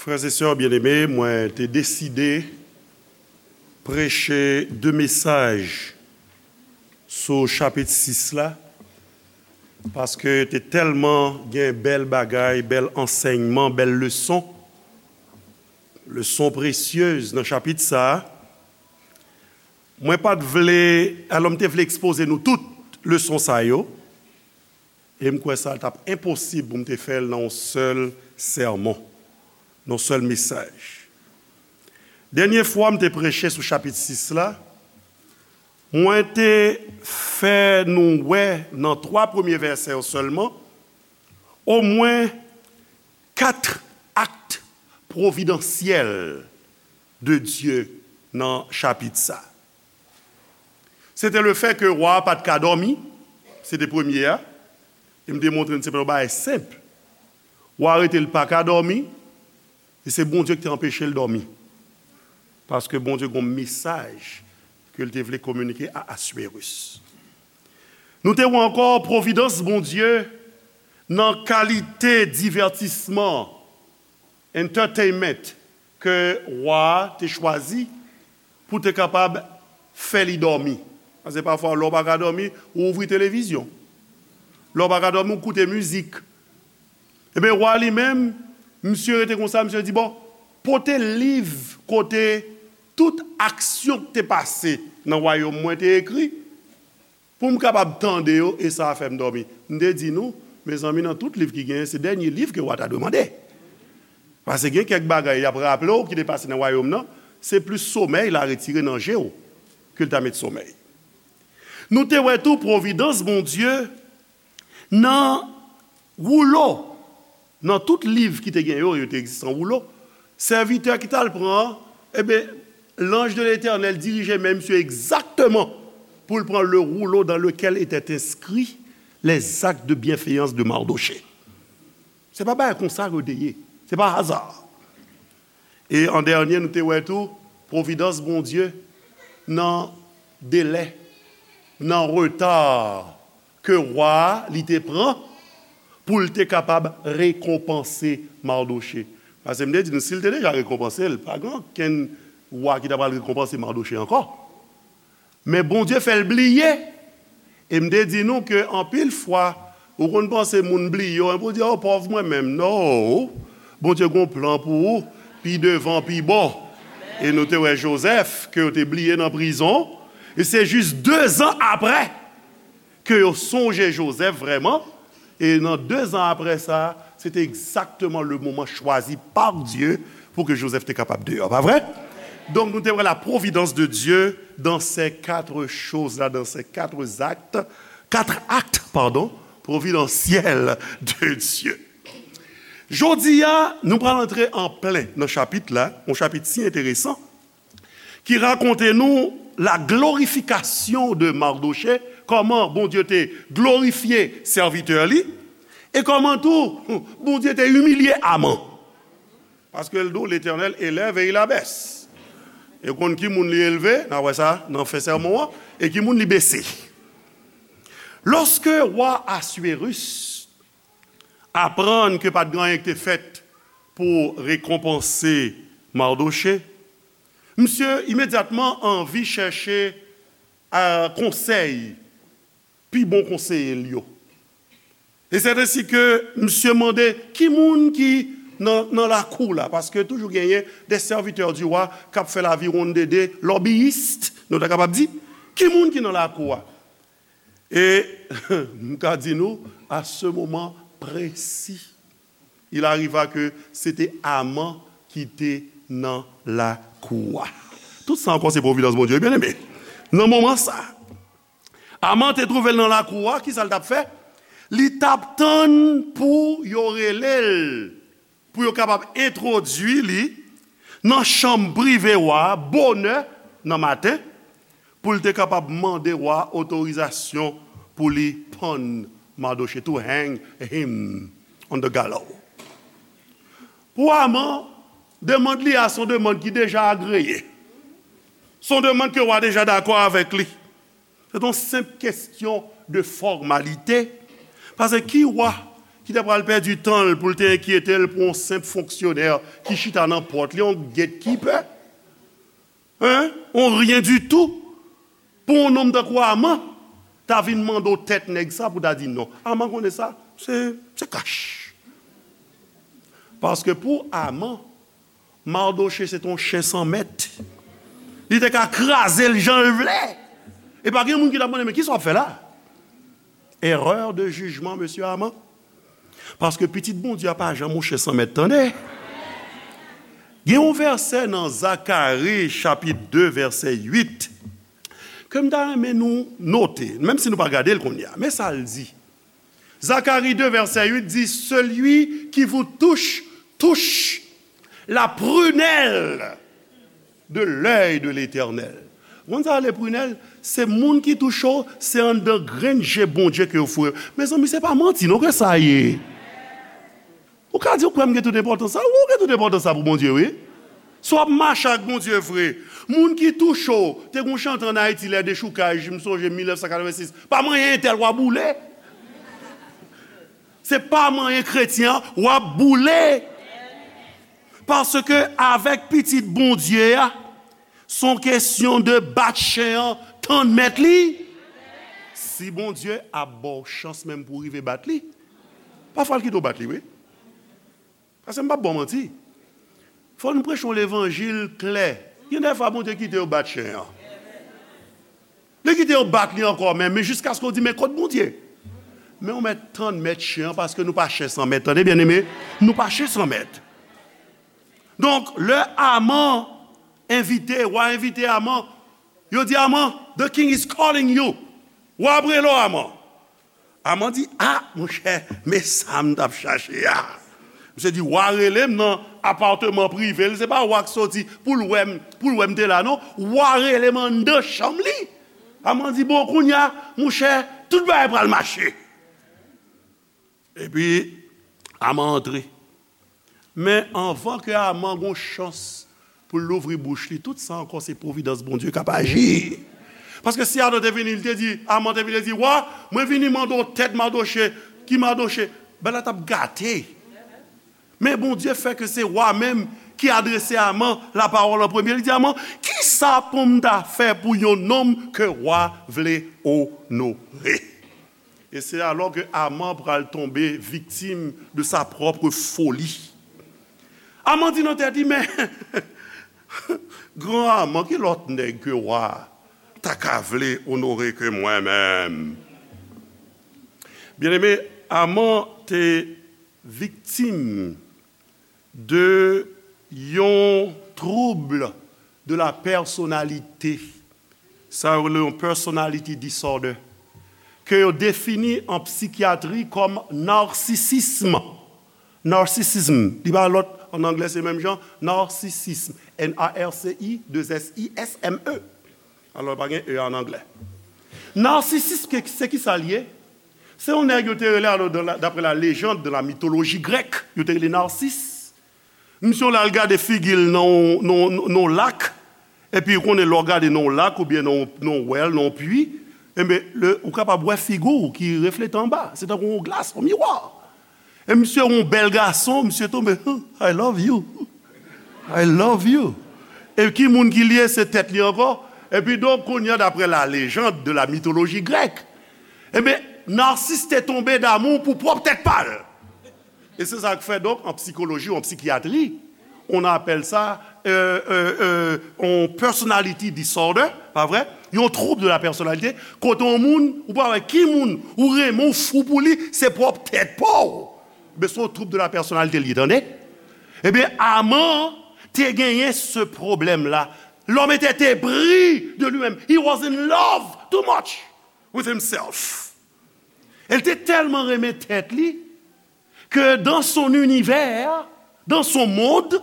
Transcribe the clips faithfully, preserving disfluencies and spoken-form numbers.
Frè e sè byeneme, mwen te deside preche de mesaj sou chapit sis la, paske te tèlman gen bèl bagay, bèl ansèyman, bèl leson, leson presyez nan chapit sa a. Mwen pa t vle, alò m te vle ekspoze nou tout leson sa yo, e m kwè sa t ap enposib pou m te fè l nan yon sèl sèmon, nan yon sèl mesaj. Dènye fwa m te preche sou chapit sis la, mwen te fè nou wè nan twa premye vèsè yo sèlman, omwen kat akt pwovidansyèl de Dye nan chapit sa. Se te lefè ke wa a pa t ka dòmi, se te premye a, e m te montre n se pa yon bagay senp. Wa a rete l pa ka dòmi, e se Bondye ki te anpeche l dòmi. Paske Bondye gen yon mesaj ke l te vle kominike a Aswerus. Nou te wè ankò pwovidans Bondye nan kalite divètisman, entertainment, ke wa a te chwazi pou te kapab fè li dòmi. Paske pafwa, lè w pa ka dòmi, ou ouvri televizyon. Lè w pa ka dòmi, ou koute mizik. Ebyen, wa li menm, misye rete konsa, misye di, "Bon, pote liv kote tout aksyon ki te pase nan wayòm mwen te ekri, pou m kapab tande yo, e sa a fè m dòmi." M te di nou, mezanmi, nan tout liv ki genyen, se dènye liv ke wa ta dwe mande. Paske gen kèk bagay y ap raple w ki te pase nan wayòm nan, se plis somèy l a retire nan je w ke l ta met somèy. Nou te wè tou pwovidans Bondye nan woulo, nan tout liv ki te gen yo, yo te egziste an woulo, sèvitè ki t al pran an, ebyen, l'ange de l'Éternel dirije men misye egzakteman pou l pran le rouleau dans lequel étaient inscrits les actes de bienfaisance de Mardochée. Se pa bagay konsa ke yo te ye. Se pa aza. E an dènye, nou te wè tou pwovidans Bondye nan delè, nan reta ke wa a li te pran pou l te kapab rekonpanse Mardoche. Paske m te di nou, si l te deja rekonpanse l, pa gen okenn wa ki ta pral rekonpanse Mardoche ankò. Men Bondye fè l bliye. E m te di nou ke anpil fwa, ou konn panse moun bliye w, epi w di, "O, pòv mwen menm." Non! Bondye gen yon plan pou ou, pi devan, pi bon. E nou te wè Jozèf, ke yo te bliye nan prizon. E se jis dezan apre ke yo sonje Jozèf vrèman. E nan dezan apre sa, se te egzakteman le moman chwazi pa Dye pou ke Jozèf te kapab deyò, pa vre? Donk, nou te wè la providence de Dieu dans ces quatre choses-là, dans ces quatre actes, quatre actes, pardon, providentiels de Dieu. Jodi a, nou pral antre an plen nan chapit la, yon chapit si enteresan, ki rakonte nou la glorification de Mardochée, kòman Bondye te glorifye sèvitè li, e kòman tou Bondye te imilye Aman. Paske l di w, Letènèl elève e il abèse. E w konn ki moun li elve, n a wè sa nan fen sèmon an, e ki moun li bese. Lòske wa Aswerus aprann ke pa t gen anyen ki te fèt pou rekonpanse Mardoche, misye imedyatman anvi chèche, a, konsèy pi bon konseye l yo. E se ensi ke misye mande ki moun ki nan, nan lakou la, paske toujou genyen des serviteurs du roi k ap fè laviwonn dede, lobbyist, nou ta kapab di, ki moun ki nan lakou a. E m ka di nou, à ce moment précis, il arriva que se te Aman ki te nan lakou a. Tout sa ankò se providence Bondye, wi, byeneme. Nan moman sa, Aman te twouve l nan lakou a, kisa l t ap fè? Li t ap tann pou yo rele l, pou yo kapab entwodui li nan chanm prive wa a bonè nan maten, pou l te kapab mande wa a otorizasyon pou li pann Mardoche, to hang him on the gallows. Pou Aman, demann li a se yon demann ki deja agreye. Se yon demann ke wa deja dakò avèk li. Se yon senp kesyon de fòmalite. Paske ki wa ki ta pral pèdi tan l pou l te enkyete l pou yon senp fonksyonè ki chita nan pòt li, yon gatekeeper, hein, yon ryen ditou, pou yon nonm tankou Aman ta vin mande w tèt nèg sa pou ta di non. Aman konnen sa, se, se kach. Paske pou Aman, Madoche se te yon chen san mèt. Li te ka kraze l jan l vle. E pa gen moun ki t ap mande, men kisa w ap fè la? Erreur de jugement, mesye Aman. Paske pitit Bondye a pa janm yon chen san mèt, tande. Gen yon vèsè nan Zakari, chapit de, vèsè uit, ke m ta renmen nou note, menm si nou pa gade l kounye a. Men sa l di. Zacharie deux, verset huit dit, celui qui vous touche, touche la prunelle de l'œil de l'Éternel. Ou konn sa rele prunelle? Se moun ki touche w, se anndan grenn je Bondye ke yo foure. Mezanmi, se pa manti non ke sa ye. Ou ka di ou kwè m gen tout enpòtans sa? Wi, ou gen tout enpòtans sa pou Bondye, wi. Si w ap mache ak Bondye vre, moun ki touche w, te gen yon chante ann Ayiti, lè dechoukaj, m sonje mil nèf san katrevensis, pa manyen entèl, w a boule. Se pa manyen kretyen an, w ap boule. Paske avèk pitit Bondye a, se yon kesyon de bat chen an, tann mèt li. Si Bondye ap ba w chans menm pou w rive bat li, pafwa l kite w bat li, wi. Paske m p ap ba w manti. Fò nou preche yon levanjil klè. Gen de fwa Bondye kite yo bat chen an. Li kite yo bat li ankò menm, men jiskaske w di, men kot Bondye? Men w mèt tann mèt chen an, paske nou pa chen san mèt. Tande byeneme, nou pa chen san mèt. Donk, lè Aman envite, wa envite Aman, yo di Aman, the king is calling you. Wa ap rele w, Aman. Aman di, a, monchè, men sa m t ap chache a. Misye di, wa rele m nan apatman prive l, se pa wa k soti pou l wè m, pou l wè m te la, non. Wa rele m anndan chanm li. Aman di, bon, kounye a, monchè, tout bagay pral mache. Epi, Aman antre. Men anvan ke Aman gen yon chans pou l louvri bouch li, tout sa ankò se pwovidans Bondye k ap aji. Paske si Adan te vini, li te di, Aman te vini, li di, wa, mwen vini mande w tèt Madoche, ki Madoche? Bagay la t ap gate. Men Bondye fè ke se wa menm ki adrese Aman lapawòl an premye. Li di Aman, kisa pou m ta fè pou yon nonm ke wa vle onore? E se alò ke Aman pral tonbe viktim de sa propre folie. Aman di nan tèt li, men, gran Aman, ki lòt nèg ke wa ta ka vle onore ke mwen menm? Byeneme, Aman te viktim de yon trouble de la personnalité. Sa yo rele yon personality disorder, ke yo defini an psikyatri kòm narsisism. Narsisism, li pa lòt, an anglè se menm jan, narsisism, N A R C I, deux S I S M E. Alò, pa gen E an anglè. Narsisism, ke- se ki sa l ye? Se yon nèg yo te rele, alò, dans la- d'après la légende de la mythologie grecque, yo te rele Narsis. Misye w la al gade figi l nan yon, nan yon, nan yon lak, epi ou konnen lè w gade nan yon lak oubyen nan yon, nan yon wèl, nan yon pwi, enben, le, ou kapab wè figi w ki reflete anba. Se tankou yon glas, yon miwa. E misye yon bèl gason, misye tonbe, I love you. I love you. E ki moun ki l ye? Se tèt li ankò. Epi donk, kounye a, d'après la légende de la mythologie grecque, enben, Narsis te tonbe damou pou pwòp tèt pa l. E se sa k fè, donk, an psikoloji ou an psikyatri, on apèl sa, euh, euh, euh, yon personality disorder, pa vre? Yon trouble de la personnalité, kote yon moun, ou pa wè ki moun ou renmen, ou fou pou li, se pwòp tèt pa w. Men se yon trouble de la personnalité li ye, tande? Ebyen, Aman te genyen se pwoblèm la. L'homme était épris de lui-même. He was in love too much with himself. El te tèlman renmen tèt li que dans son univers, dans son monde,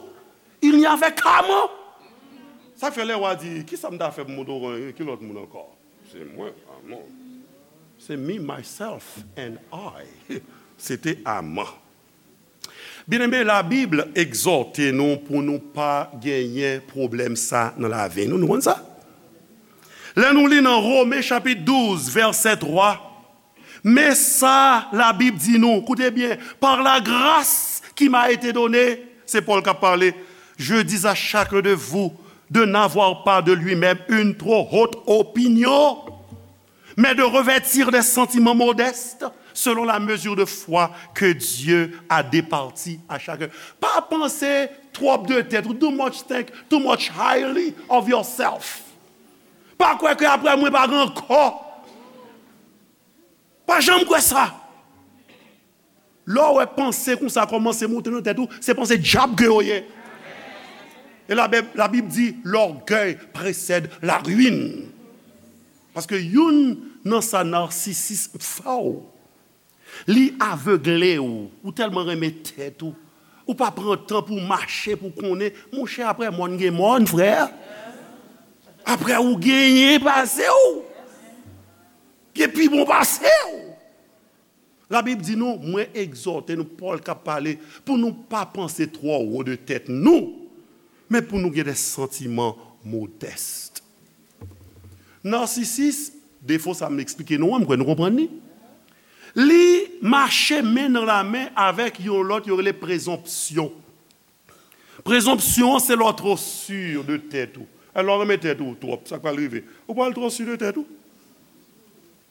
il n'y avait qu'Aman. Sa fè lè wa di, kisa m ta fè pou m oto ki lòt moun ankò? Se mwen, Aman. Se me, myself and I. Se te Aman. Byeneme, Labib egzòte nou pou nou pa genyen pwoblèm sa nan lavi nou. Nou konn sa? Lè nou li nan Women chapit douz, vèsè twa, Men sa Labib di nou, koute byen, par la grâce qui m'a été donnée, se Pòl k ap pale, je dis à chacun de vous de n'avoir pas de lui-même une trop haute opinion, mais de revêtir des sentiments modestes selon la mesure de foi que Dieu a départie à chacun. Pa panse twòp de tèt ou, too much think, too much highly of yourself. Pa kwè ke apre mwen pa gen ankò. Pa janm kwè sa. Lè w wè panse konsa kòmanse monte nan tèt ou, se panse dyab ke yo ye. E Labib, Labib di, l'orgueil précède la ruine. Paske youn nan sa narsisis fè w, li avegle w, ou tèlman renmen tèt ou, ou pa pran tan pou w mache, pou w konnen, monchè, apre mòn gen mòn, frè. Apre ou genyen pase w, gen pi bon pase w. Labib di nou, mwen egzòte nou, Pòl k ap pale, pou nou pa panse twò wo de tèt nou, men pou nou gen de santiman modès. Narsisis, defo sa m eksplike nou an, m kwè nou konprann li. Li mache men nan lamen avèk yon lòt yo rele prezonpsyon. Prezonpsyon an se lè w twò si de tèt ou. Alò, w renmen tèt ou twòp, sa k pral rive? Ou pral twò si de tèt ou.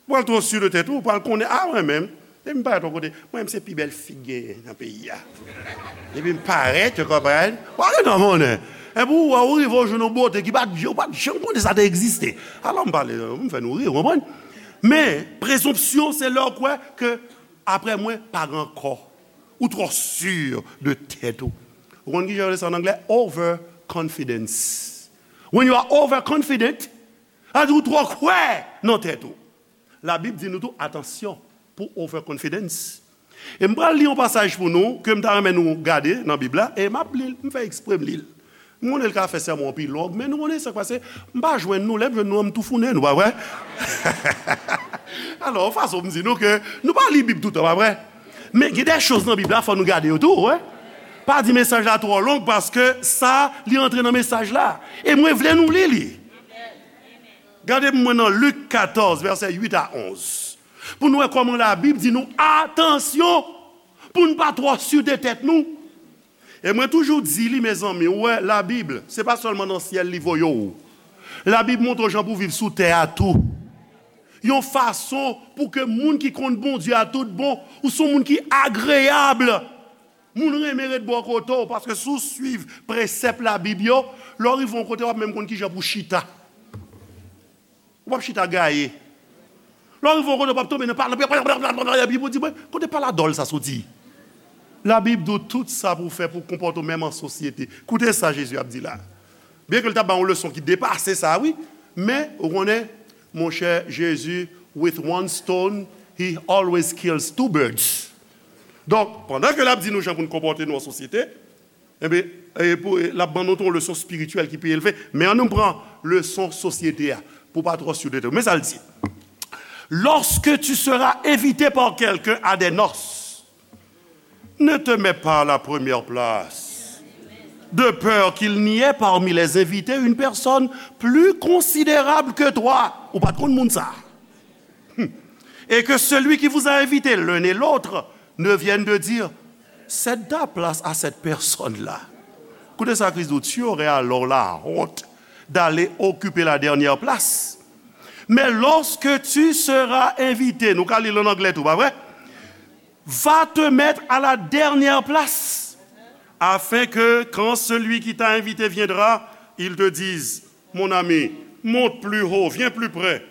Ou pral twò si de tèt ou, ou pral konnen, a, mwen menm, depi m parèt yon kote, mwen menm se pi bèl fi k genyen nan peyi a. Depi m parèt, ou konprann? W ap gen nan monnen. Epi ou wè, ou rive, ou jwenn yon bote ki pa t, ou pa t janm konnen sa te egziste. Alò, m pale, m fè nou ri, ou konprann? Men, prezonpsyon, se lè w kwè ke apre mwen, pa gen ankò. Ou twò si de tèt ou. Ou konn ki jan yo rele sa an anglè? Overconfidence. When you are overconfident, sa vle di ou twò kwè nan tèt ou. Labib di nou tou, atansyon pou overconfidence. E m pral li yon pasaj pou nou, ke m ta renmen nou gade nan Bib la, e m ap li l, m fè eksprè m li l. M konnen l ka fè sèmon an pi long, men nou konnen sa k pase, m pa jwenn nou, lè m jwenn nou an, m toufounen nou, pa vre? Alò, yon fason m di nou ke nou pa li Bib toutan, pa vre? Men gen de choz nan Bib la, fò nou gade yo tou, wi. Pa di mesaj la twò long, paske sa, li antre nan mesaj la. E mwen vle nou li li. Gade pou mwen nan Lik katòz, vèsè uit a onz. Pou nou wè kòman Labib di nou, atansyon, pou n pa twò si de tèt nou. E mwen toujou di li, mezanmi, ou wè, Labib, se pa sèlman nan syèl li voye w. Labib montre w jan pou w viv sou tè a tou. Yon fason pou ke moun ki konn Bondye a tout bon, ou se yon moun ki agreyab. Moun renmen ret bò kote w, paske si w swiv presèp Labib yo, lè w rive yon kote, w ap menm konn ki jan pou w chita. Ou p ap chita gaye. Lè w rive yon kote, w p ap tonbe nan pala, epi pou di, "Mwen, kote pala dòl sa soti?" Labib di w tout sa pou w fè pou w konpòte w menm an sosyete. Koute sa Jezi ap di la. Byenke l t ap ba yon leson ki depase sa, wi, men, ou konnen, monchè, Jezi, with one stone, he always kills two birds. Donk, pandan ke l ap di nou jan pou n konpòte nou an sosyete, Ebyen, e pou, e, l ap ban nou tou yon leson espirityèl ki pi elve. Men ann nou pran leson sosyete a, pou pa twò si de tèt. Men sa l di. Lorsque tu seras invité par quelqu'un à des noces, ne te mets pas à la première place, de peur qu'il n'y ait parmi les invités une personne plus considérable que toi. Ou pa t konn moun sa. Et que celui qui vous a invité l'un et l'autre ne vienne de dire, cède ta place à cette personne-là. Koute sa Kris di w, tu aurais alors la honte d'aller occuper la dernière place. Mais lorsque tu seras invité, nou ka li l an anglè tou, pa vre? Va te mettre à la dernière place, afin que quand celui qui t'a invité viendra, il te dise, mon ami, monte plus haut, viens plus près.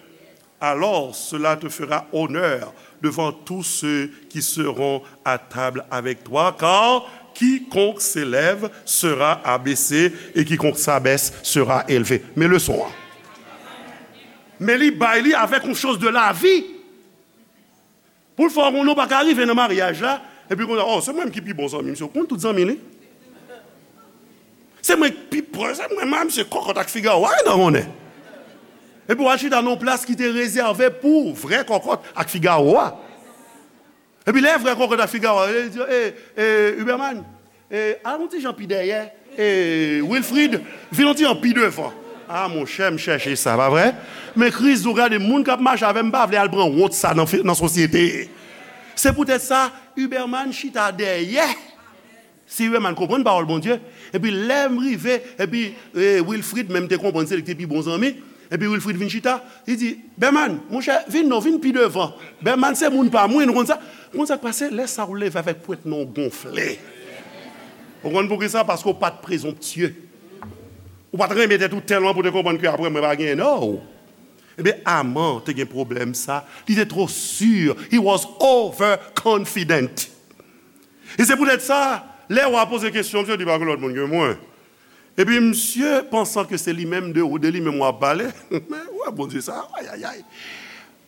Alors cela te fera honneur devant tous ceux qui seront à table avec toi, car quiconque s'élève sera abaissé, et quiconque s'abaisse sera élevé. Men leson an. Men li bay li avèk yon choz de lavi. Pou l fè w konnen w pa ka rive nan maryaj la, epi kounye a, oh, se mwen menm ki pi bon zanmi misye, ou konn tout zanmi li. Se mwen ki pi pwòch, se mwen menm, se kòkòt ak figawo a, wi, nan konnen. Epi w al chita nan yon plas ki te rezève pou vrè kòkòt ak figawo a. Epi lè vrè kòkòt ak figawo a, li di, eh, eh, Huberman, eh, al yon ti jan pi dèyè, eh, Wilfrid, vin yon ti jan pi devan. Ah, monchè, m chèche sa, pa vre? Men Kris di w, gade, moun k ap mache avè m pa vle al pran wont sa nan, nan sosyete. Se poutèt sa, Huberman chita dèyè. Si Huberman konprann pawòl Bondye, epi lè m rive, epi eh, Wilfrid menm te konprann, se li ki te pi bon zanmi, epi Wilfrid vin chita, li di, Berman, monchè, vin non, vin pi devan. Berman se moun pa mwen, nou konn sa. Ou konn sa k pase? Lè sa w leve avèk pwent non w gonfle. Ou konn poukisa? Paske w pa t prezonptye. Ou pa t renmen tèt ou tèlman pou te konprann ke apre mwen pa gen non. Ebyen, Aman te gen pwoblèm sa. Li te twò si. He was overconfident. E se poutèt sa, lè w a poze kesyon, misye di pa gen lòt moun ke mwen. Epi misye, pansan ke se li menm de, de li menm w ap pale, men wè Bondye sa, ayayay.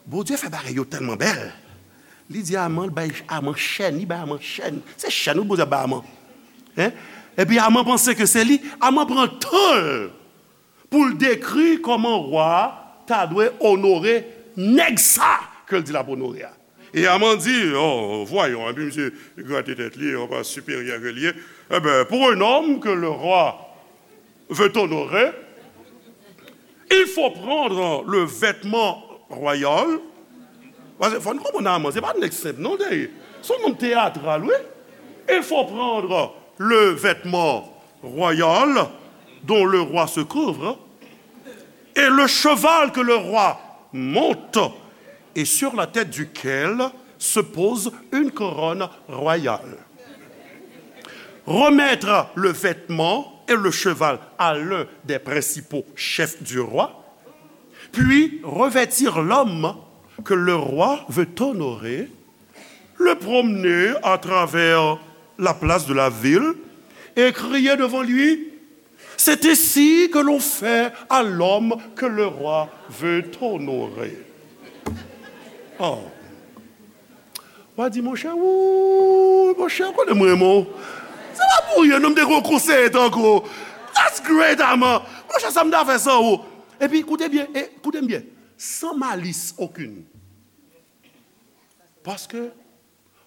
Bondye fè bagay yo tèlman bèl. Li di Aman, bay Aman chèn, li bay Aman chèn. Se chèn wi Bondye ap bay Aman. Hein? Epi Aman panse ke se li, Aman pran tan l pou l dekri kòman wa a ta dwe onore nèg sa ke l di l ap onore a. E Aman di, oh, voyons, epi misye grate tèt li, on pa siperyè ke l ye. Eh ben, pour un homme que le roi veut honorer, il faut prendre le vêtement royal. Paske fò n konprann Aman, se pa nèg senp non, li ye. Se yon nonm teyatral, wi. Il faut prendre le vêtement royal dont le roi se couvre, et le cheval que le roi monte, et sur la tête duquel se pose une couronne royale. Remettre le vêtement et le cheval à l'un des principaux chefs du roi, puis revêtir l'homme que le roi veut honorer, le promener à travers la place de la ville et crier devant lui, c'est ainsi que l'on fait à l'homme que le roi veut honorer. Oh. W a di, monchè, wouy, monchè, konnen mwen renmen w. Se pa pou ryen, non, m te gen yon konseye tankou w. That's great, Aman. Monchè, sa m ta fè san ou. Epi, koute byen, e, koute m byen. Sans malice aucune. Paske,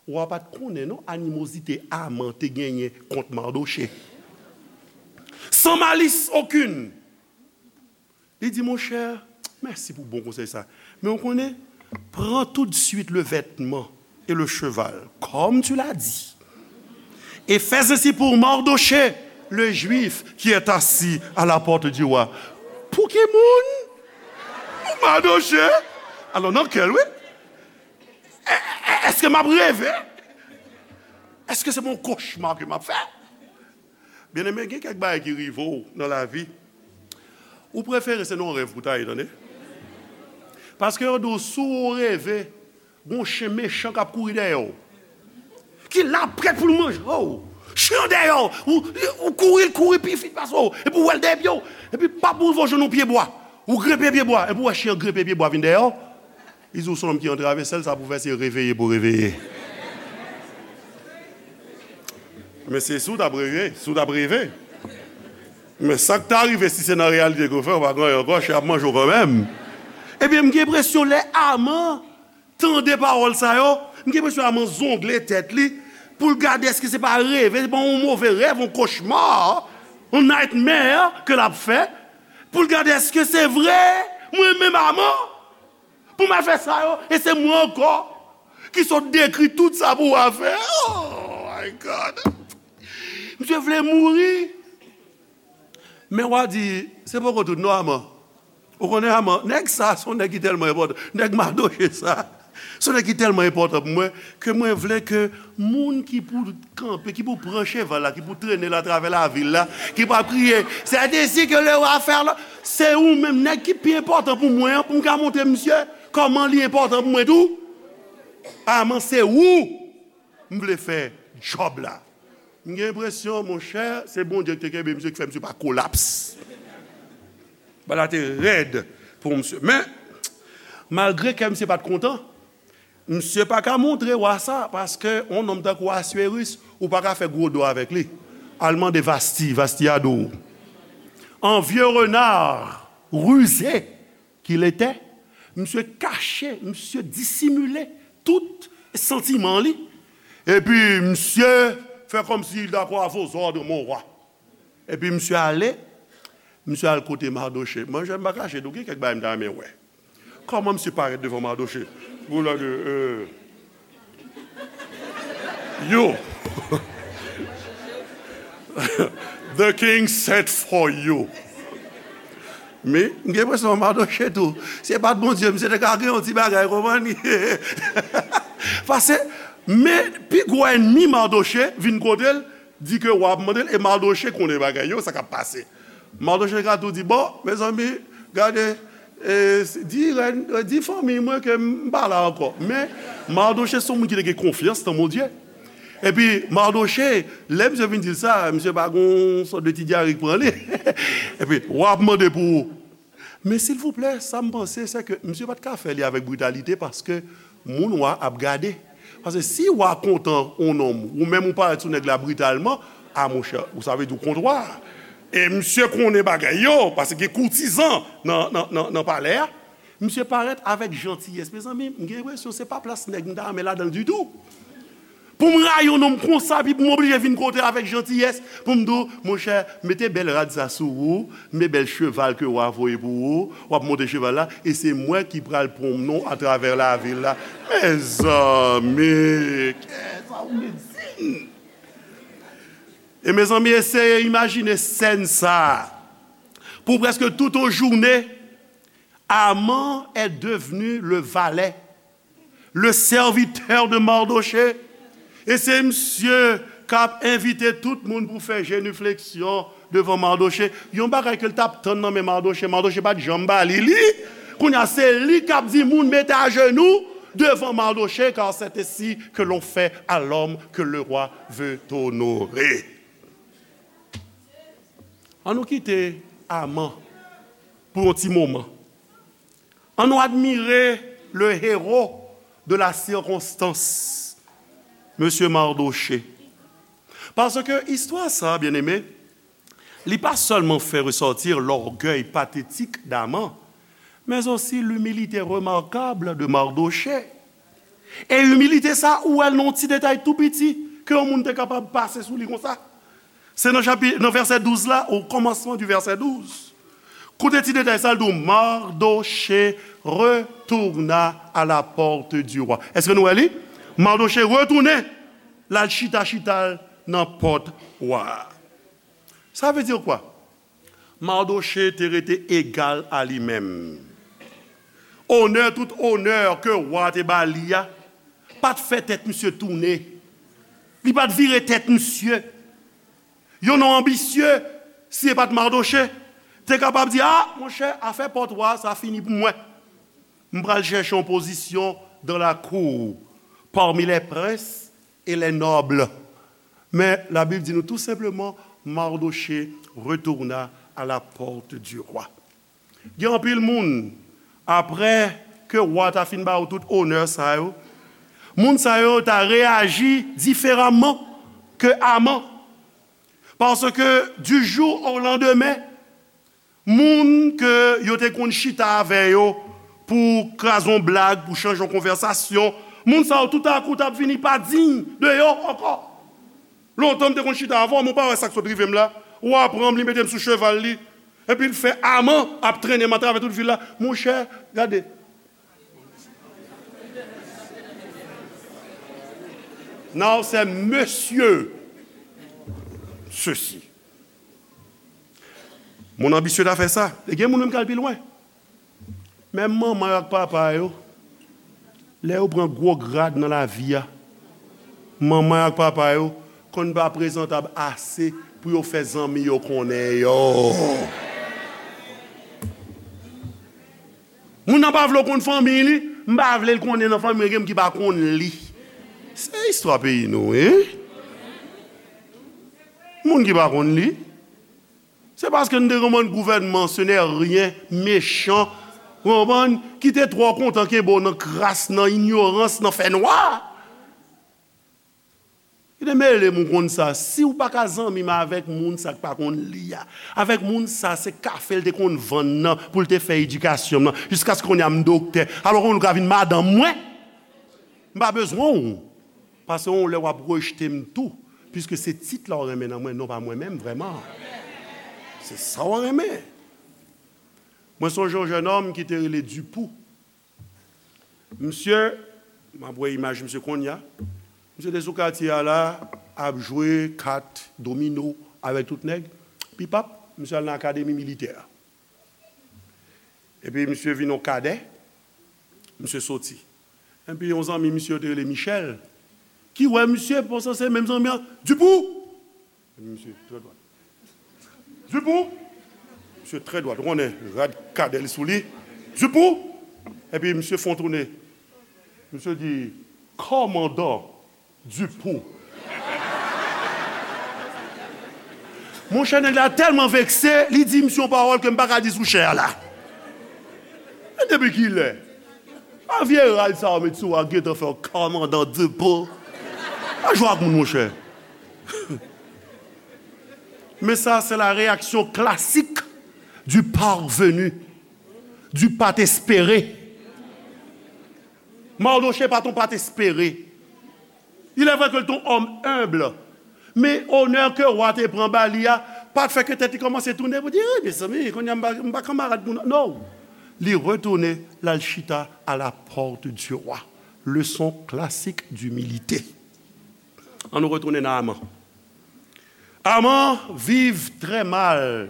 wa pa t konnen, non, animozite Aman te genyen kont Mardoche. Sans malice aucune. Li di, monchè, mèsi pou bon konsèy sa. Men ou konnen, prends tout de suite le vêtement et le cheval, comme tu l'as dit, et fais ainsi pour Mardochée, le Juif, qui est assis à la porte du roi. Pou ki moun? Pou Mardochée. Alò, nan kè l, wi. È-, è-, èske m ap reve? Èske se yon kochma ke m ap fè? Byeneme, gen kèk bagay ki rive w nan lavi. Ou prefere se nan yon rèv pou ta ye, tande. Paske yo di w, si w reve, gon chen mechan k ap kouri dèyè w. Ki la prèt pou l manje w. Chen an dèyè w. Ou, ou kouri, l kouri pi vit pase w. Epi w wè l dèyè pye w. Epi pap ou rive w jwenn yon pye bwa. Ou grenpe pye bwa. Epi w wè chen an grenpe pye bwa vin dèyè w. Li di w se yon nonm ki antrave, sèl sa pou fè se reveye pou reveye. Men se si w t ap reve, si w t ap reve. Men sa k ta rive si se nan reyalite ke w fè, w pa gen anyen ankò, chen ap manje w kanmenm. Ebyen, m gen enpresyon lè Aman tande pawòl sa yo, m gen enpresyon Aman zongle tèt li pou l gade èske se pa reve, se pa yon move rèv, yon kochma, yon nightmare ke l ap fè, pou l gade èske se vre, mwen menm Aman. Pou m al fè sa yo, e se mwen ankò ki sot dekri tout sa pou w a fè. Oh my God! Misye vle mouri. Men w a di, se poko tout non, Aman. Ou konnen Aman, nèg sa, se yon nèg ki tèlman enpòtan. Nèg Madoche sa, se yon nèg ki tèlman enpòtan pou mwen, ke mwen vle ke moun ki pou kanpe, ki pou pran cheval la, ki pou trennen l atravè lavil la, ki pou ap kriye, c'est ainsi que le roi fait, se ou menm nèg ki pi enpòtan pou mwen an, pou m ka montre misye kòman li enpòtan pou mwen tou. Aman, se ou m vle fè djòb la. M gen enpresyon, monchè, se Bondye ki te kenbe misye, ki fè misye pa kolaps. Bagay la te rèd pou misye. Men, malgre kè misye pa t kontan, misye pa ka montre wa sa, paske yon nonm tankou Aswéris, ou pa ka fè gwo do avèk li. Al mande Vasti, Vasti a di w. En vieux renard rusé qu'il était, misye kache, misye disimile tout santiman li. Epi misye fè kòmsi il dakò à vos ordres, mon roi. Epi misye ale, Misye al kote Mardochée. Mwen, jan m pa kache, tou gen kèk bagay m ta renmen wè. Kòman misye parèt devan Mardochée? Pou lè de, euh, yo. The king sent for you. Men, m gen enpresyon Mardochée tou. Se pa t Bondye, misye te ka gen yon ti bagay, konprann? Paske, men, pi gwo ènmi Mardochée vin kote l, di ke wa ap mande l, e Mardochée konnen bagay yo, sa k ap pase. Mardochée ka tou di, bon, mezanmi, gade, e, di rèn, e, di fanmi mwen ke m pa la ankò. Men, Mardochée se yon moun ki te gen konfyans nan Bondye. Epi, Mardochée, lè misye vin di l sa, misye pa gon sòt de ti dyare k pran li. Epi, wa ap mande pou ou. Men silvouplè, sa m panse, se ke misye pa t ka fè li avèk britalite, paske moun wa ap gade. Paske si wa kontan yon nonm, ou menm ou parèt sou nèg la britalman, a monchè, ou sa vle di w kont wa. E misye konnen bagay yo, paske gen koutizan nan, nan, nan, nan palè a. Misye parèt avèk jantiyès. Mezanmi, m gen enpresyon se pa plas nèg m ta renmen ladan l ditou. Pou m rayi yon nonm konsa, epi pou m oblije vin kote avèk jantiyès, pou m di w, monchè, mete bèl rad sa sou ou, mete bèl cheval ke wa voye pou ou, w ap monte cheval la, e se mwen ki pral pwonmne w atravè lavil la. Mezanmi, kè sa ou vle di m? E mezanmi, eseye imajine sèn sa a. Pou prèske tout yon jounen, Aman est devenu le valet, le serviteur de Mardochée. E se misye k ap envite tout moun pou fè jenifleksyon devan Mardochée. Yon bagay ke l t ap tann nan men Mardochée, Mardochée pa t janm ba li li. Kounye a, se li k ap di moun mete ajenou devan Mardochée, car c'est ainsi que l'on fait à l'homme que le roi veut honorer. An nou kite Aman pou yon ti moman. An nou admire le héros de la circonstance, Mesye Mardochée. Paske istwa sa, byeneme, li pa sèlman fè resòti lògèy patetik d'Aman, mais aussi l'humilité remarquable de Mardochée. E imilite sa, ou wè l nan yon ti detay tou piti, ke yon moun te kapab pase sou li konsa. Se nan chapi-, nan vèsè douz la, o kòmansman di vèsè douz. Koute ti detay sa, l di w, Mardochée retourna à la porte du roi. Èske nou wè li? Mardochée retounen, l al chita, chita l nan pòt wa a. Sa vle di kwa? Mardochée te rete égal à lui-même. Onè, tout onè ke wa te ba li a, pa t fè tèt misye tounen. Li pa t vire tèt misye. Yon nonm anbisye, si e pa t Mardochée, te kapab di, a, monchè, afè pòt wa sa fini pou mwen. M pral chèche yon pozisyon dans la cour, parmi les princes et les nobles. Men Labib di nou tou senpleman, Mardochée retourna à la porte du roi. Gen anpil moun, apre ke wa ta fin ba yo tout onè sa yo, moun sa yo ta reyaji diferaman ke Aman. Paske du jour au lendemain, moun ke yo te konn chita avè yo pou kraze yon blag, pou chanje yon konvèsasyon, moun sa yo toutakou t ap vini pa diy de yo ankò. Lontan m te konn chita avè w, men w pa wè sa k sot rive m la. Wa pran m, li mete m sou cheval li, epi l fè Aman ap trennen m atravè tout vil la. Monchè, gade. Now se mesye sesi. Moun anbisye ta fè sa. E gen moun menm k al pi lwen. Menm manman yo ak papa yo, lè yo pran gwo grad nan lavi a, manman yo ak papa yo konn pa prezantab ase pou yo fè zanmi yo konnen yo. Moun nan pa vle w konn fanmi li, m pa vle l konnen nan fanmi mwen, gen moun ki pa konn li. Se istwa peyi nou, wi. Moun ki pa konn li. Se paske n te gen yon gouvènman, ce n'est rien, mechan, ou konprann, ki te twò kontan kenbe w nan kras, nan inyorans, nan fènwa. Ki te mele m ou konn sa. Si w pa ka zanmi m avèk moun sa k pa konn li a, avèk moun sa, se kafe l te konn vann nan pou l te fè edikasyon m nan, jiskaske kounye a m doktè. Alò, kounye a ou ka vin madanm mwen. M pa bezwen w. Paske yon lè w ap rejte m tou, piske se tit la w renmen nan mwen, non pa mwen menm vrèman. Se sa w renmen. Mwen sonje yon jennonm ki te rele Dupou. Misye, m ap wè imaj misye konnya. Misye te sou katye a la, ap jwe kat, domino avèk tout nèg. Pipap, misye al nan akademi militè a. Epi misye vin yon kadè, misye soti. Epi yon zanmi misye yo te rele Michel, ki wè misye, panse se menm zanmi an, Dupou! Epi misye trè dwat. Dupou! Misye trè dwat, ou konnen, rad kadè li sou li. Dupou! Epi misye fè yon tounen. Misye di, kòmandan Dupou. Monchè, nèg la tèlman vekse, li di misye yon pawòl ke m pa ka di sou chè a la. Men depi kilè? A vye rad sa yo met sou a gentan fè w kòmandan Dupou. Pa jwe ak moun, monchè. Men sa, se la reyaksyon klasik du parvenu, du pa t espere. Mardochée pa t on pa t espere. Il est vrai que l t on òm enb, men onè ke wa te pran ba li a pa t fè ke tèt li kòmanse tounen pou di, "Eh, mezanmi, kounye a m pa, m pa kanmarad moun." Non. Li retounen, l al chita à la porte du roi. Leçon classique d'humilité. Ann nou retounen nan Aman. Aman viv trè mal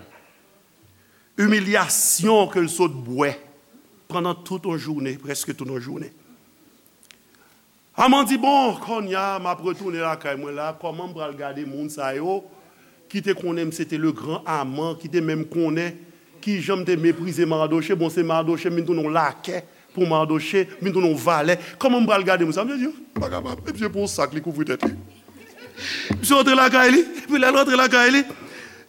imiliyasyon ke l sot bwè pandan tout yon jounen, prèske tout yon jounen. Aman di, "Bon, kounye a, m ap retounen lakay mwen la, kòman m pral gade moun sa yo ki te konnen m se te le grand Aman, ki te menm konnen kijan m te meprize Mardochée? Bon, se Mardochée, m vin tounen yon lakè pou Mardochée, m vin tounen yon valè. Kòman m pral gade moun sa?" Misye di, "M pa kapab." Epi se pou yon sak li kouvri tèt li. Misye rantre lakay li, epi lè l rantre lakay li,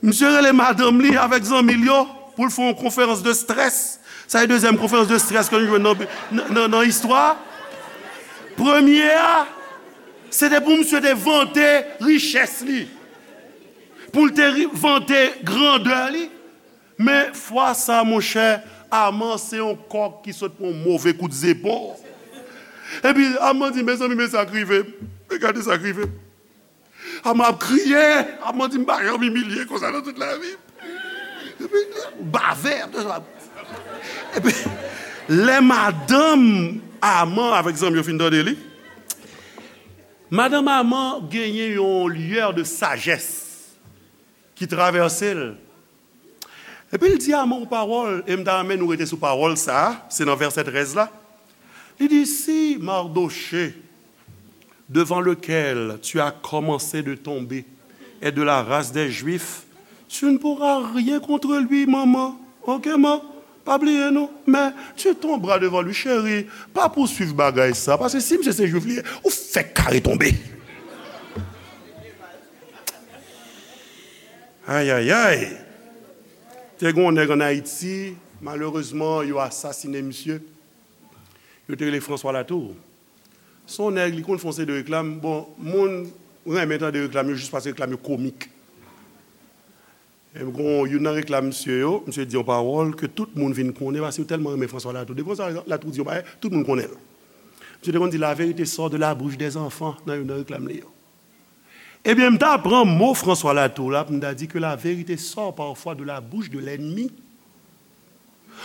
misye rele madanm li avèk zanmi l yo pou l fè yon konferans de strès. Sa se dezyèm konferans de strès ke nou jwenn nan, nan, nan, nan istwa. Premye a, se te pou misye te vante richès li, pou l te ri- vante grandè li. Men fwa sa, monchè, Aman se yon kòk ki sot pran yon move kout zepon. Epi Aman di, "Mezanmi, men sa k rive m. Men gade sa k rive m." Aman ap kriye, Aman di, "M pa janm imilye konsa nan tout lavi m." Epi, bave, ap epi, lè madanm Aman avèk zanmi yo fin tande li, madanm Aman genyen yon lueur de sagesse ki travèse l. Epi l di Aman yon pawòl, e m ta renmen nou rete sou pawòl sa a, se nan vèsè trèz la. Li di, "Si Mardochée, devant lequel tu as commencé de tomber, est de la race des Juifs, tu ne pourras rien contre lui, maman. Ok, man? Pa bliye, non. Mais tu tomberas devant lui, chérie. Pa pouswiv bagay sa, paske si misye se Jwif li ye, ou fèk kare tonbe." Ayayay! Te gen yon nèg ann Ayiti, malerezman, yo asasinen misye. Yo te rele François Latour. Se yon nèg, li konn fè yon seri de reklam. Bon, moun renmen tande reklam yo jis paske reklam yo komik. E m gon youn nan reklam misye yo, misye di yon pawòl ke tout moun vin konnen paske yo tèlman renmen François Latour. Depi François Latour di yon bagay, tout moun konnen l. Misye te konn di, "La vérité sort de la bouche des enfants" nan youn nan reklam li yo. Ebyen, m ta pran mo François Latour la pou m ta di que la vérité sort parfois de la bouche de l'ennemi.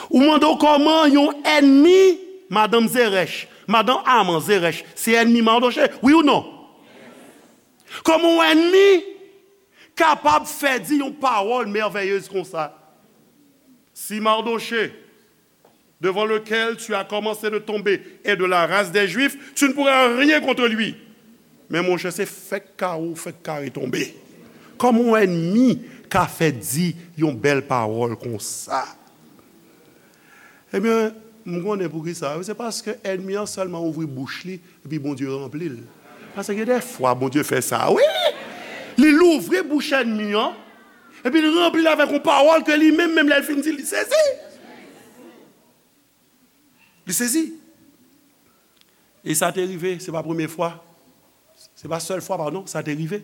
Ou mande w kòman yon ènmi, madanm Zeresh, madanm Aman Zeresh, se ènmi Mardochée, wi ou non? Kòman yon ènmi kapab fè di yon pawòl mèvèyez konsa? Si Mardochée, devant lequel tu as commencé de tomber, est de la race des Juifs, tu ne pourras rien contre lui. Men monchè, se fèk kare w fèk kare tonbe. Kòman yon ènmi ka fè di yon bèl pawòl konsa? Ebyen, m konnen poukisa. Se paske ènmi an sèlman ouvri bouch li, epi Bondye ranpli l. Paske gen de fwa Bondye fè sa, wi! Li louvri bouch ènmi an, epi l ranpli l avèk yon pawòl ke li menm, menm lè l fin di l, li sezi. Li sezi. E sa te rive, se pa premye fwa. Se pa sèl fwa, padon, sa te rive.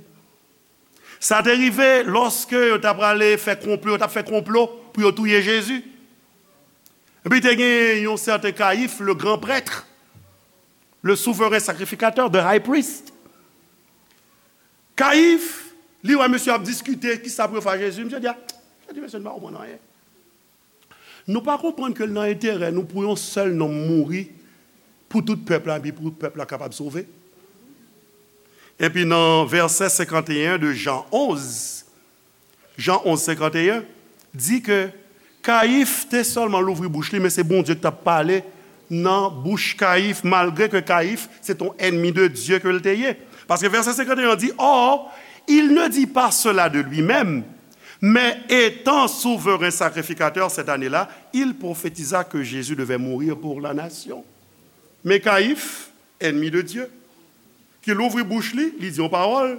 Sa te rive lòske yo t ap prale fè konplo, yo t ap fè konplo pou yo touye Jezi. Epi te gen yon sèten Kayif, le grand prêtre, le souverain sacrificateur, the high priest. Kayif, li wè mesye ap diskite, kisa pou yo fè a Jezi. Misye di, a, misye di, mesye, nou pa konprann anyen. Nou pa konprann ke l nan enterè nou pou yon sèl nonm mouri pou tout pèp la, epi pou tout pèp la kapab sove? Epi nan vèsè senkanteyen de Jan onz, Jan onz senkanteyen, di ke Kayif te sèlman louvri bouch li, men se Bondye ki t ap pale nan bouch Kayif, malgre ke Kayif se t on ènmi de Dye ke l te ye. Paske vèsè senkanteyen di, Or, il ne dit pas cela de lui-même, mais étant souverain sacrificateur cette année-là, il prophétisa que Jésus devait mourir pour la nation. Men Kayif, ènmi de Dye, ki louvri bouch li, li di yon pawòl,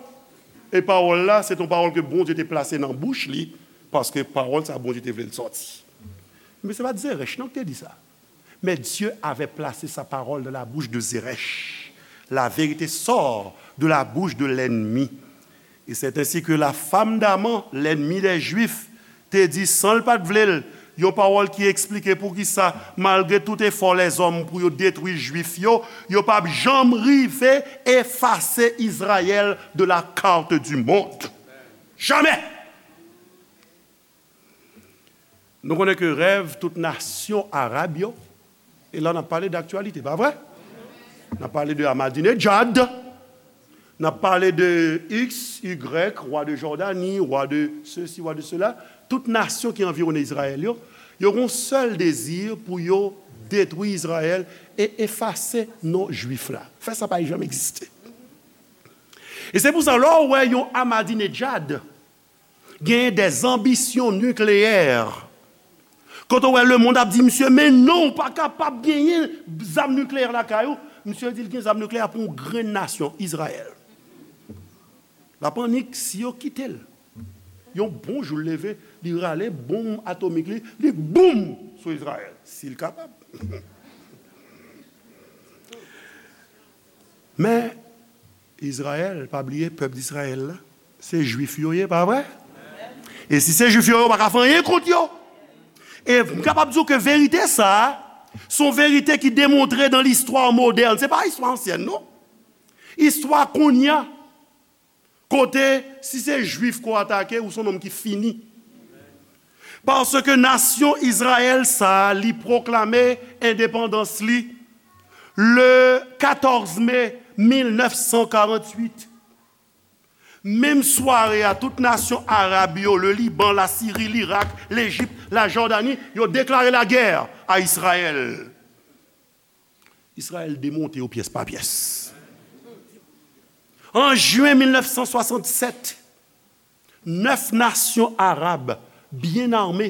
e pawòl la, se t on pawòl ke Bondye te plase nan bouch li, paske pawòl sa, Bondye te vle l sòti. Men se pa t Zerèch non ki te di sa. Mais Dieu avait placé sa parole dans la bouche de Zeresh. La vérité sort de la bouche de l'ennemi. Et c'est ainsi que la femme d'Aman, l'ennemi des Juifs, te di, san l pa t vle l, yon pawòl ki eksplike poukisa, malgre tout efò lèzòm pou yo detwi Jwif yo, yo p ap janm rive efase Izrayèl de la carte du monde. Jamè! Nou konnen ke rèv tout nasyon arab yo, e la n ap pale daktyalite, pa vre? N ap pale de Ahmadinejad, n ap pale de X, Y, wa de Jòdani, wa de sesi, wa de sela. Tout nasyon ki anviwonnen Izrayèl yo, yo gen yon sèl dezi pou yo detwi Izrayèl e efase non Jwif la. Fè sa pa janm egziste. E se pou sa, lè w wè yon Ahmadinejad genyen dèzanbisyon nikleyè, kote w wè lemonn ap di misye, men non, ou pa kapab genyen zam nikleyè lakay ou. Misye di l gen zam nikleyè pou yon grenn nasyon, Izrayèl. L ap annik si yo kite l. Yon bon jou l leve, li rale bonm atomik li, li boum sou Izrayèl, si l kapab. Men, Izrayèl, pa bliye, pèp Izrayèl la, se Jwif yo ye, pa vre? E si se Jwif yo, yo pa ka fè anyen kont yo. E m kapab di w ke verite sa a, se yon verite ki demontre nan listwa modèn. Se pa istwa ansyèn, non. Istwa kounye a, kote, si se Jwif ke w atake, ou se yon nonm ki fini. Paske nasyon Izrayèl sa a, li pwoklame endepandans li le katòz me mil nèf san karanntuit. Menm sware a, tout nasyon arab yo, le Liban, la Siri, Lirak, Lejip, la Jòdani, yo deklare lagè a Izrayèl. Izrayèl demonte yo pyès pa pyès. An jen mil nèf san swasannsèt, nèf nasyon arab byen ame,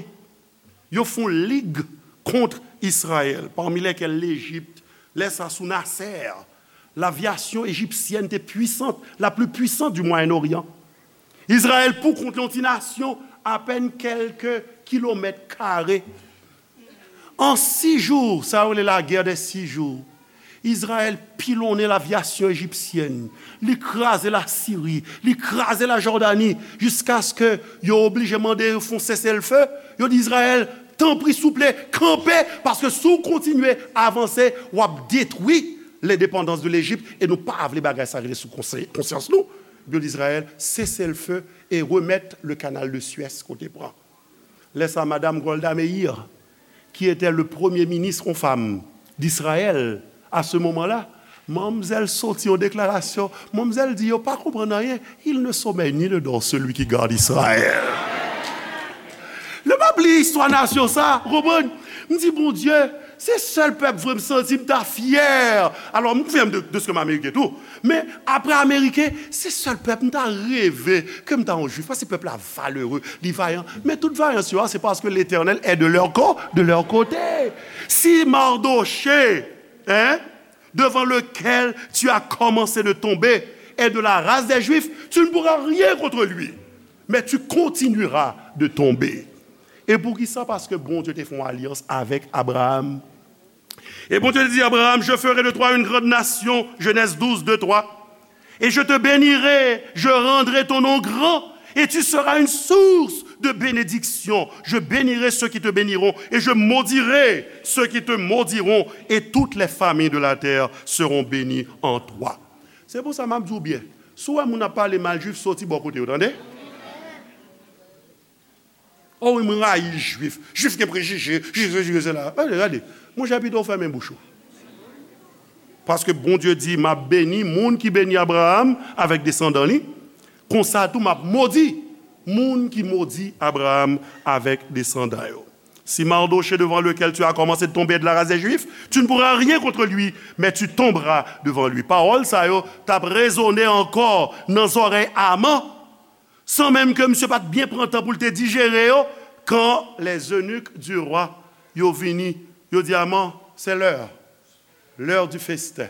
yo fè yon lig kont Izrayèl, pami lèkèl Lejip, lè sa sou Nasser, lavyasyon ejipsyèn te pwisant, la pli pwisant di Mwayen Oryan. Izrayèl pou kont li, yon ti nasyon apèn kèlke kilomèt kare. An sis jou, sa yo rele lagè dè sis jou, Izrayèl pilonnen lavyasyon ejipsyèn, li kraze Lasiri, li kraze Lajòdani, jiskaske yo oblije mande yo fè yon seselfe. Yo di Izrayèl, tanpri, souple, kanpe, paske si w kontinye avanse, w ap detwi lendepandans de Lejip, e nou pa vle bagay sa rete sou konse-, konsyans nou. Yo di Izrayèl, seselfe e remèt le canal de Suez kote pran. Lè sa, madam Golda Meir, qui était le premier ministre, yon fanm, d'Israël, à ce moment-là, manmzèl soti yon deklarasyon, manmzèl di, yo pa konprann anyen, il ne sommeille ni ne dort celui qui garde Israël. Nou p ap li istwa nasyon sa, ou konprann? M di, Bondye, se sèl pèp vre m santi m ta fyè. Alò, m konfyè m de, de ce que m Ameriken tou. Men, apre Ameriken, se sèl pèp m ta reve ke m ta yon Jwif. Paske pèp la valere, li vayan. Men tout vayans yo a, se paske Letènèl est de leur cô-, de leur côté. Si Mardochée, hein, devant lequel tu as commencé de tomber, est de la race des Juifs, tu ne pourras rien contre lui, mais tu continueras de tomber. E poukisa? Paske Bondye te fè yon alyans avèk Abraram. Et Bondye te di Abraram, je ferai de toi une grande nation, Genèse douze, deux, trois. Et je te bénirai, je rendrai ton nom grand, et tu seras une source de bénédiction. Je bénirai ceux qui te béniront, et je maudirai ceux qui te maudiront, et toutes les familles de la terre seront bénies en toi. Se pou sa m ap di w byen, si w wè moun ap pale mal Jwif, soti bò kote yo, tande. Oh wi, mwen rayi Jwif. Jwif gen prejije, Jwif, Jwif, Jwif, sela. Gade, gade. Monchè, pito w fèmen bouch ou. Paske Bondye di, "M ap beni moun ki beni Abraram avèk desandan li. Konsa tou, m ap modi moun ki modi Abraram avèk desandan yo." Si Mardochée devant lequel tu as commencé de tomber est de la race des Juifs, tu ne pourras rien contre lui, mais tu tomberas devant lui. Pawòl sa yo t ap rezone ankò nan zòrèy Aman, san menm ke misye pa t byen pran tan pou l te dijere yo, quand les eunuques du roi yo vini, yo di Aman, c'est l'heure. L'heure du festin.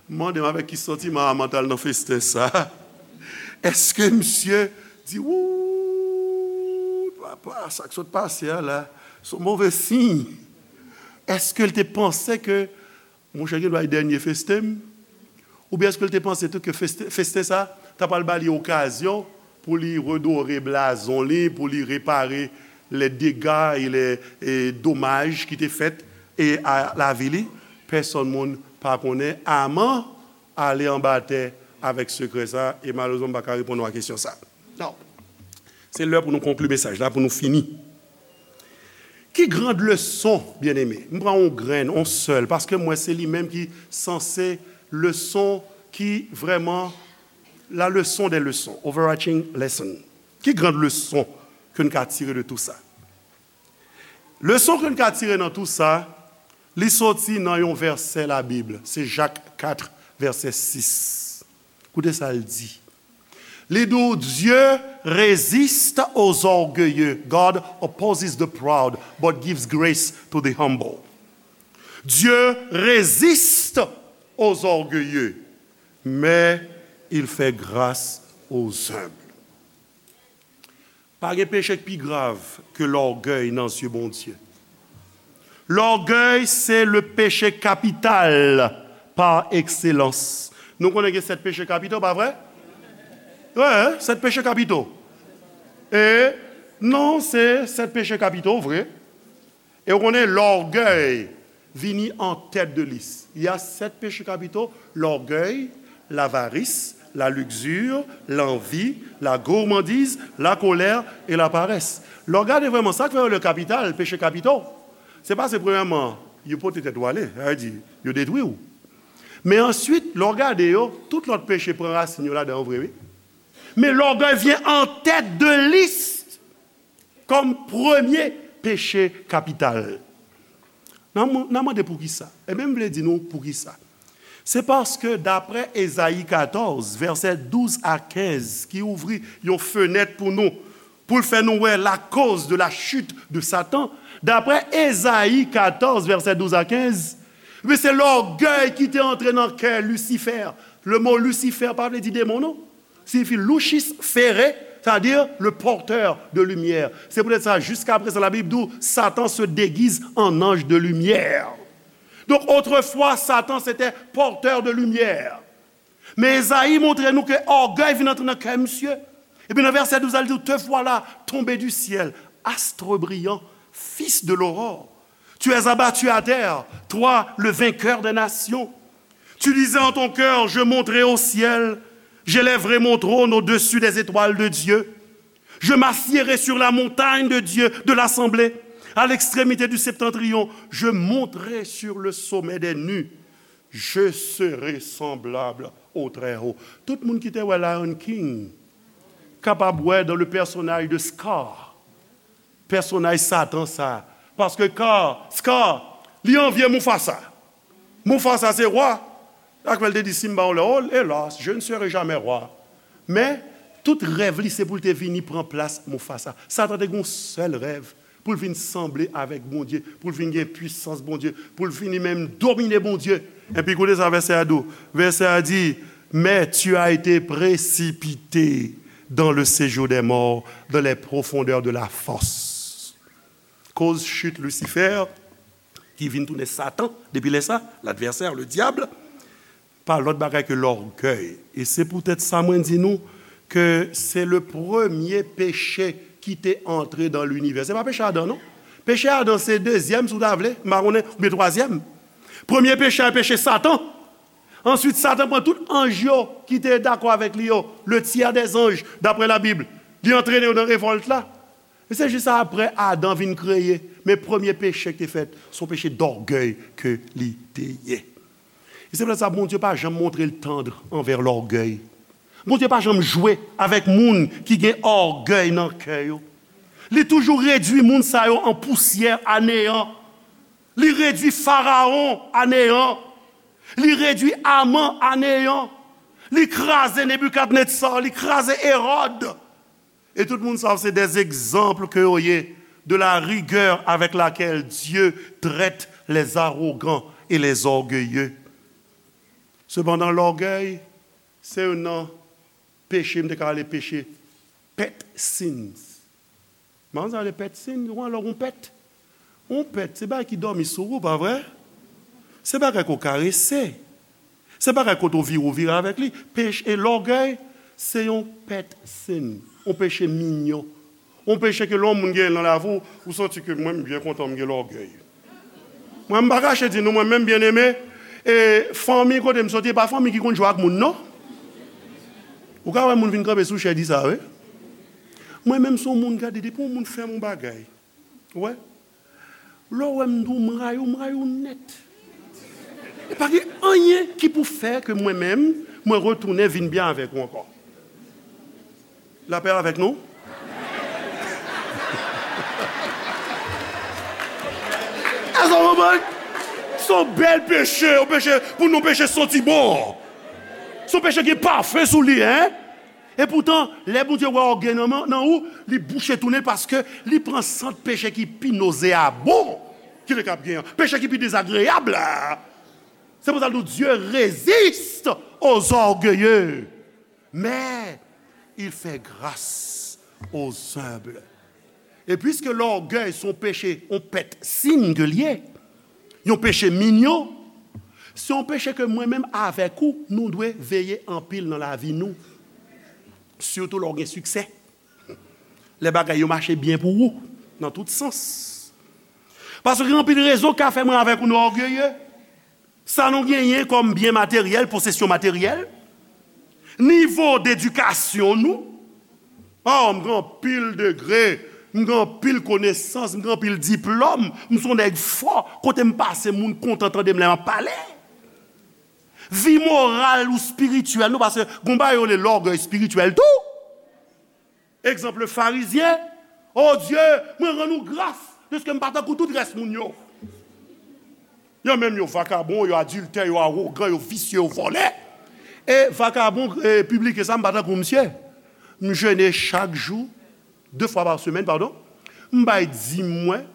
M mande m avèk ki santiman Aman t al nan festen sa. Èske misye di, "Wou, papa, sa k sot pase a la, se yon move siy"? Èske l te panse ke, "Monchè, gen dwa e dènye festen m"? Oubyen èske l te panse tou ke feste-, festen sa ta pral ba li okazyon pou li redore blazon li, pou li repare les dégâts et les, e, dommages ki te fèt, e, a lavi li? Pèsonn moun pa konnen. Aman ale anba tè avèk sekrè sa, e malerezman, m pa ka reponn ou a kesyon sa. Non. Se lè pou nou konkli mesaj la, pou nou fini. Ki grand leson, byeneme? M pran yon grenn, yon sèl, paske m wè se li menm ki sanse leson ki vrèman la leson dè leson, overarching lesson. Ki grand leson ke n ka tire de tou sa? Leson ke n ka tire nan tou sa, li soti nan yon vèsè Labib, se Jak kat, vèsè sis. Koute sa l di. Li di w, "Dieu résiste aux orgueilleux, God opposes the proud, but gives grace to the humble." Dieu résiste aux orgueilleux, mais il fait grâce aux humbles. Pa gen peche k pi grav ke lògèy nan zye Bondye. Lògèy se le péché capital par excellence. Nou konnen gen sèt peche kapito, pa vre? Wi, sèt peche kapito. E non, se sèt peche kapito, vre. E w konnen, lògèy vini an tèt de lis. Il y a sept péchés capitaux, l'orgueil, l'avarice, la luxure, l'envie, la gourmandise, la colère et la paresse. Lè w gade vrèman, sa k fè yo le kapital, peche kapito, se paske premyèman, yo pote tèt ou ale, sa vle di, yo detwi w. Men answit, lè w gade yo, tout lòt peche pran rasin yo ladan yo vre, wi. Men lògèy vyen an tèt de lis kòm premye peche kapital. N a, n a mande poukisa. Ebyen, m vle di nou poukisa. Se paske, daprè Ezayi katòz, vèsè douz a kenz, ki ouvri yon fenèt pou nou, pou l fè nou wè la cause de la chute de Satan, daprè Ezayi katòz, vèsè douz a kenz, men se lògèy ki te antre nan kè Lisifè. Le mo Lisifè pa vle di demon, non. Siyifi lucis fere, c'est-à-dire le porteur de lumière. Se poutèt sa, jiska prezan, Labib di w, Satan se déguise en ange de lumière. Donk, otrefwa, Satan se te pòtè de limyè. Men Ezayi montre nou ke ògèy vin antre nan kè misye. Epi nan vèsè douz la, li di, "Te voilà tombé du ciel, astre brillant, fils de l'aurore. Tu es abattu à terre, toi, le vainqueur des nations. Tu disais en ton cœur, je monterai au ciel, j'élèverai mon trône au-dessus des étoiles de Dieu. Je m'assiérai sur la montagne de Dieu, de l'assemblée, à l'extrémité du septentrion. Je monterai sur le sommet des nues. Je serai semblable au Très-Haut." Tout moun ki te wè Lion King kapab wè dans le personnage de Scar, pèsonaj Satan sa. Paske Scar, Scar, li anvye Mufasa. Mufasa se wa. Sa k fè l te di Simba yon lè, "Oh, hélas, je ne serai jamais roi." Men, tout rèv li se pou l te vini pran plas Mufasa. Satan te gen yon sèl rèv, pou l vin sanble avèk Bondye, pou l vin gen pwisans Bondye, pou l vini menm domine Bondye. Epi koute sa vèsè a di w. Vèsè a di, "Mais tu as été précipité dans le séjour des morts, dans les profondeurs de la fosse." Koz chit Lisifè, ki vin tounen Satan, depi lè sa, ladvèsè, le diable, pa lòt bagay ke lògèy. E se poutèt sa mwen di nou ke se le premye peche ki te antre dan linivè. Se pa peche Adan, non. Peche Adan se dezyèm, si w ta vle, m pa konnen, oubyen twazyèm. Premye peche a, peche Satan. Answit, Satan pran tout anj yo ki te dakò avèk li yo, le tiers des anges, daprè Labib. Li antrene yo nan revòlt la. E se jis apre Adan vin kreye, men premye peche ki te fèt, se yon peche dògèy ke li te ye. E se poutèt sa, Bondye pa janm montre l tandr anvè lògèy. Bondye pa janm jwe avèk moun ki gen ògèy nan kè yo. Li toujou redui moun sa yo an pousyè, a neyan. Li redui Farawon a neyan. Li redui Aman a neyan. Li kraze Nebikadnetza, li kraze Ewòd. Et tout moun sa se des exemples que yo ye de la rigueur avec laquelle Dieu traite les arrogants et les orgueilleux. Sepandan, lògèy se youn nan peche, m te ka rele peche pet sins. Manzè rele pet sins, ou konn lè w gon pet? Yon pet, se bagay ki dòmi sou ou, pa vre? Se bagay ke w karese. Se bagay kote w vire, w vire avèk li. Peche e lògèy, se yon pet sins, yon peche minyon. Yon peche ke lè yon moun gen nan lavi w, ou santi ke mwen, m byen kontan m gen lògèy. Mwen, m pa kache di nou, mwen menm, byeneme, e fanmi kote m soti, e pa fanmi ki konn jwe ak moun, non. Ou ka wè moun vin kanpe sou chè di sa, wi. Mwen menm, se yon moun, gade, depi yon moun fè m yon bagay, ou wè, lè w wè m di w m rayi w, m rayi w nèt. E pa gen anyen ki pou fè ke mwen menm, mwen retounen vin byen avèk ou ankò. Lapè avèk nou? Èske w konprann? Se yon bèl peche, yon peche, pou nou peche santi bon. Se yon peche ki gen pafen sou li, en? E poutan, lè Bondye wè ògèy nan, nan ou, li bouche tounen l paske li pran sant peche ki pi nozeabon ki te kab gen an. Peche ki pi dezagreyab la. Se pou sa l di w, Dieu résiste aux orgueilleux, mais il fait grâce aux humbles. E piske lògèy se yon peche, yon pet sins ke l ye, yon peche minyon, se yon peche ke mwen menm avèk ou, nou dwe veye anpil nan lavi nou. Sitou lè w gen siksè. Lè bagay yo mache byen pou ou, nan tout sans. Paske gen anpil rezon k ka fè mwen avèk ou nou ògeye. Sa nou genyen kòm byen materyèl, posesyon materyèl, nivo dedikasyon nou. Oh, m gen anpil degre, m gen anpil konesans, m gen anpil diplòm, m se yon nèg fò, kote m pase, moun kontan tande m lè m ap pale. Vi moral ou espirityèl nou, paske gon bagay yo rele lògèy espirityèl tou. Egzanp, le farizyen, oh Dye, mwen rann ou gras, piske m pa tankou tout rès moun yo. Yo menm, yo vakabon, yo adiltè, yo awogan, yo visye, yo vòlè. E vakabon, e pibliken sa, m pa tankou misye. M jene chak jou, de fwa pa semèn, padon. M bay dim mwen.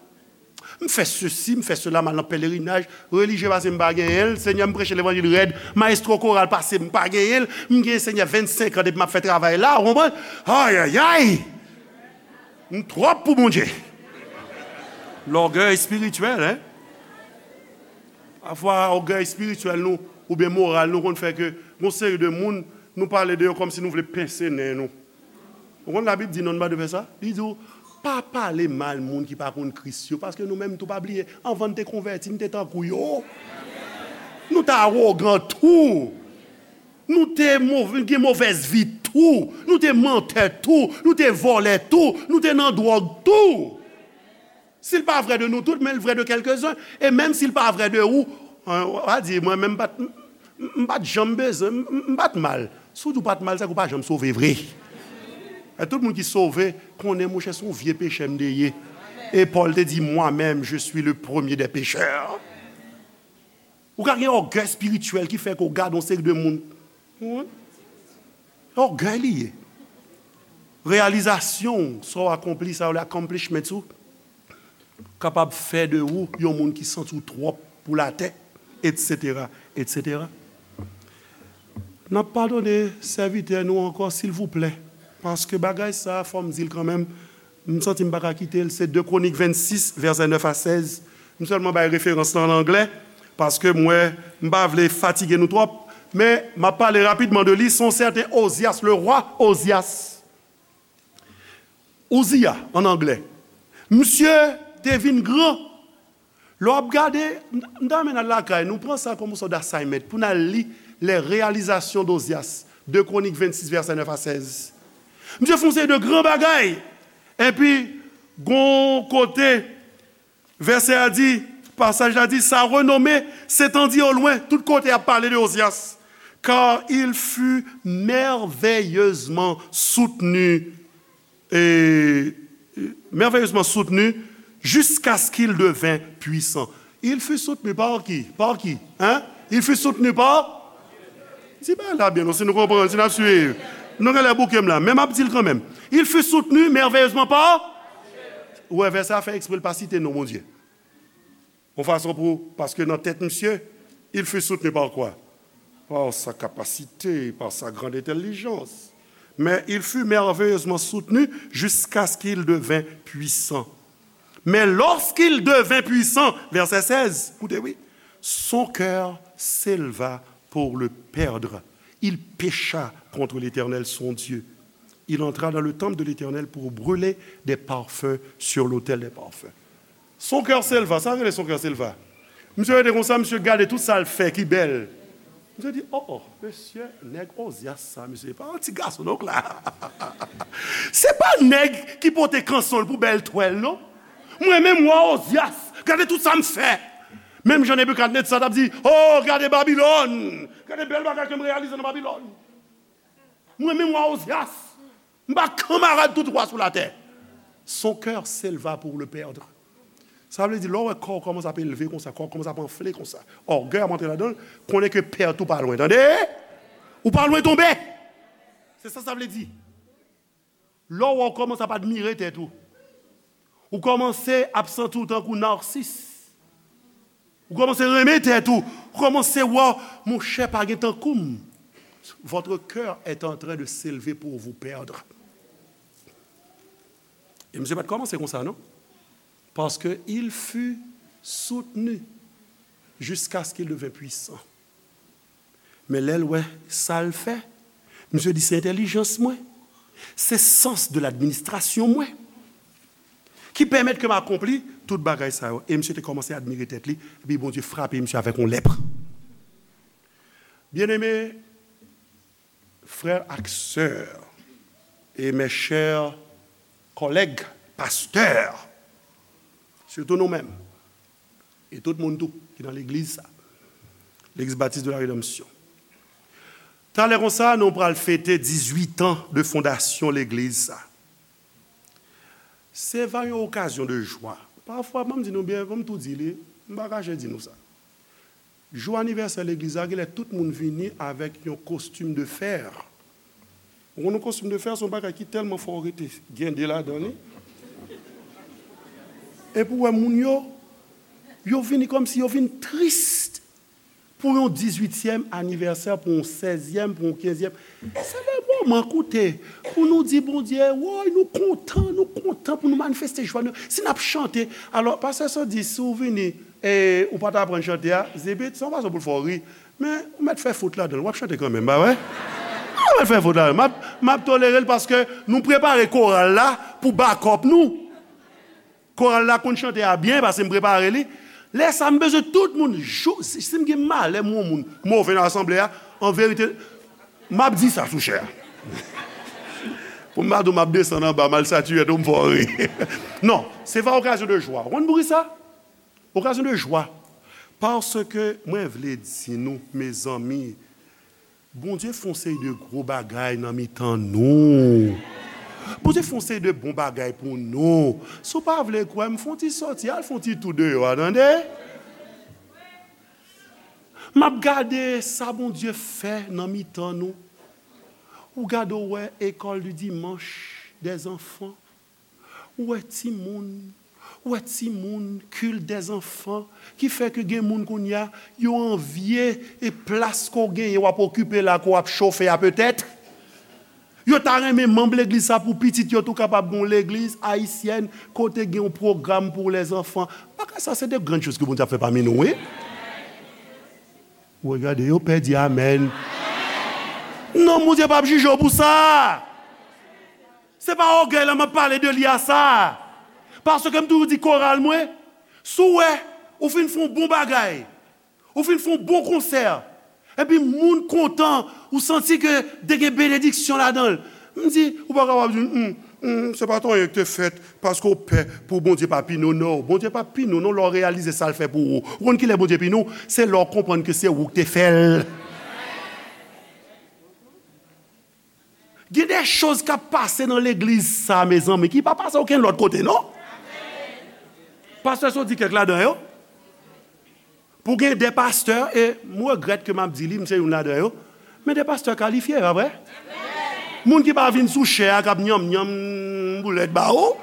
M fè sesi, m fè sela, m al nan pelerinaj. Relijye pase m pa genyen l. Senyè, m preche levanjil rèd. Mayestwo koral pase m pa genyen l. M gen, Senyè, vennsenk an depi m ap fè travay la, ou konprann? Ayayay! M twòp pou Bondye. Lògèy espirityèl, en? Pafwa, ògèy espirityèl nou, oubyen moral nou, konn fè ke gon seri de moun, nou pale de yo kòmsi nou vle pense nen nou. Ou konn Labib di non, nou pa dwe fè sa? Li di w, pa pale mal moun ki pa konn Kris yo, paske nou menm tou, pa bliye, anvan n te konvèti, n te tankou yo. Nou te awogan tou. Nou te mov-, gen movèz vi tou. Nou te mantè tou. Nou te vòlè tou. Nou te nan dwòg tou. Si l pa vrè de nou tout, men l vrè de kèlkezen. E menm si l pa vrè de ou, an, w a di, mwen menm m pa t, m, m, m pa t janm bezwen, m, m, m pa t mal. Si w di w pa t mal, sa vle di w pa janm sove vre. E tout moun ki sove, konnen, monchè, se yon vye pechè m te ye. E Pòl te di, moi-même, je suis le premier des pécheurs. Ou ka gen ògèy espirityèl ki fè ke w gade yon seri de moun. Wi. Ògèy li ye. Reyalizasyon w, sa w akonpli, sa yo rele accomplishments ou, kapab fè de ou yon moun ki santi w twòp pou latè, etsetera, etsetera. N ap padone sèvitè nou ankò, silvouplè, paske bagay sa a, fò m di l kanmenm, m santi m pa ka kite l, se de Kwonik vennsis, vèsè nèf a sèz. M sèlman bay referans lan an anglè, paske m wè m pa vle fatige nou twòp, men m ap pale rapidman de li, se yon sèten Ozyas, le roi Ozyas. Uziya, an anglè. Misye te vin gran. Lè w ap gade, m, m ta renmen n al lakay nou, pran sa kòm yon sòt d'assignment, pou n al li les réalisations d'Ozias, de Kwonik vennsis, vèsè nèf a sèz. Misye fè yon seri de gran bagay. Epi, Gon kote, vèsè a di, pasaj la di, sa renome s'étendit au loin. Tout kote ap pale de Ozyas. Car il fut merveilleusement soutenu, et, merveilleusement soutenu jusqu'à ce qu'il devint puissant. Il fut soutenu par qui? Par qui? Hein? Il fut soutenu par Di bagay la byen, non, si nou konprann, si n ap swiv. Nou genlè bouke m la, men m ap di l kanmenm. Il fut soutenu merveilleusement par. Ou wè, vèsè a fè eksprè l pa site non Bondye. Yon fason pou, paske nan tèt misye, il fut soutenu par quoi? Par sa capacité, par sa grande intelligence. Mais il fut merveilleusement soutenu jusqu'à ce qu'il devint puissant. Mais lorsqu'il devint puissant, vèsè sèz, koute wi, son cœur s'éleva pour le perdre. Il pécha contre l'Éternel, son Dieu. Il entra dans le temple de l'Éternel pour brûler des parfums sur l'autel des parfums. Son cœur s'éleva, sa rele son cœur s'éleva. Misye rete konsa, misye gade tout sa l fè ki bèl. Misye di, oh, oh, mesye, nèg Ozyas sa, mesye, pa yon ti gason non k la. Se pa nèg ki pote kanson l pou bèl twèl, non. Mwen menm wa Ozyas, gade tout sa m fè. Menm jan Nebikadnetza t ap di, oh, gade Babilòn, gade bèl bagay ke m reyalize nan Babilòn. Mwen menm wa Ozyas, m pa kanmarad tout wa sou latè. Son cœur s'éleva pour le perdre. Sa vle di, lè w wè kò w kòmanse ap elve konsa, kò w kòmanse ap anfle konsa, ògèy ap antre ladan l, konnen ke pèt ou pa lwen, tande? Ou pa lwen tonbe! Se sa sa vle di. Lè w wè w kòmanse ap admire tèt ou, ou kòmanse ap santi w tankou nasis. Ou kòmanse renmen tèt ou. Ou kòmanse wè, monchè, pa gen tankou m. Votre cœur est en train de s'élever pour vous perdre. E misye pa t kòmanse konsa, non. Parce que il fut soutenu jusqu'à ce qu'il devint puissant. Men lè l wè sa l fè, misye di, se entèlijans mwen, se sans de l'administration mwen ki pèmèt ke m akonpli tout bagay sa yo. E misye te kòmanse admire tèt li, epi Bondye frape misye avèk yon lèp. Byeneme, frè ak sè, e mes chers collègues pasteurs, sitou nou menm, e tout moun tou ki nan legliz sa, Legliz Batis de la Redanmsyon. Talè konsa, nou pral fete dizuit an de fondasyon legliz sa. Se va yon okazyon de jwa. Pafwa, ban m di nou byen, ban m tou di li, m pa kache di nou sa. Jou anivèsè legliz la, genlè tout moun vini avèk yon kostim de fè. Ou konn yon kostim de fè, se yon bagay ki tèlman fò, ou rete gen de ladan li. Epi w wè moun yo, yo vini kòmsi yo vin tris pou yon dizuityèm anivèsè, pou yon sèzyèm, pou yon kenzyèm. Se le moman, koute, pou nou di Bondye, woy, nou kontan, nou kontan pou nou manifeste jwa nou. Si n ap chante, alò, pastè Sandi, si w vini, e ou pa t aprann chante a, zibit, se yon fason pou l fè w ri. Men, ou mèt fè fot ladan l, w ap chante kanmenm, pa vre? Ou mèt fè fot ladan l. M ap, m ap tolere l paske nou prepare koral la pou bakòp nou. Koral la konn chante a byen, paske m prepare li. Lè sa, m bezwen tout moun, jou, si, si m gen malè, m wè yon moun move nan asanble a, an verite, m ap di sa sou chè a. Pou m pa di w m ap desann anba, m al satiye tou, m fè w ri. Non, se pa okazyon de jwa. Ou konn poukisa? Okazyon de jwa. Paske mwen vle di nou, mezanmi, Bondye fè yon seri de gwo bagay nan mitan nou. Bondye fè yon seri de bon bagay pou nou. Si w pa vle kwè, m fè yon ti sòti, al fè yon ti tou deyò a, tande? M ap gade sa Bondye fè nan mitan nou. Ou gade, ou wè école du dimanche des enfants. Ou wè timoun, ou wè timoun, culte des enfants, ki fè ke gen moun kounye a, yo anvye e plas ke w genyen, w ap okipe la, ke w ap chofe a petèt. Yo ta renmen manm legliz sa pou pitit yo tou kapab gen yon legliz ayisyèn kote gen yon pwogram pou lèzanfan. Bagay sa, se de grann choz ke Bondye ap fè pami nou, wi. Ou regade yo, pè di amèn. Non, Bondye p ap jije w pou sa. Se pa ògèy la m ap pale de li a sa. Paske m toujou di koral mwen, si w wè ou fin fè yon bon bagay, ou fin fè yon bon konsè, epi moun kontan, ou santi ke te gen benediksyon ladan l, m di, ou pa kapab di, hmm, Hmm, se pa t anyen ki te fèt paske w pè pou Bondye pa pini w, non. Bondye p ap pini w, non, lè w reyalize sa l fè pou ou. Ou konn kilè Bondye pini w? Se lè w konprann ke se ou ki te fè l. Gen de choz k ap pase nan legliz sa, mezanmi, ki pa pase okenn lòt kote, non. Pastè sot di kèk ladan yo. Pou gen de pastè, e m regrèt ke m ap di li, m se youn ladan yo, men de pastè kalifye, pa vre? Moun ki pa vin sou chè a, k ap nyanm nyanm boulèt ba ou.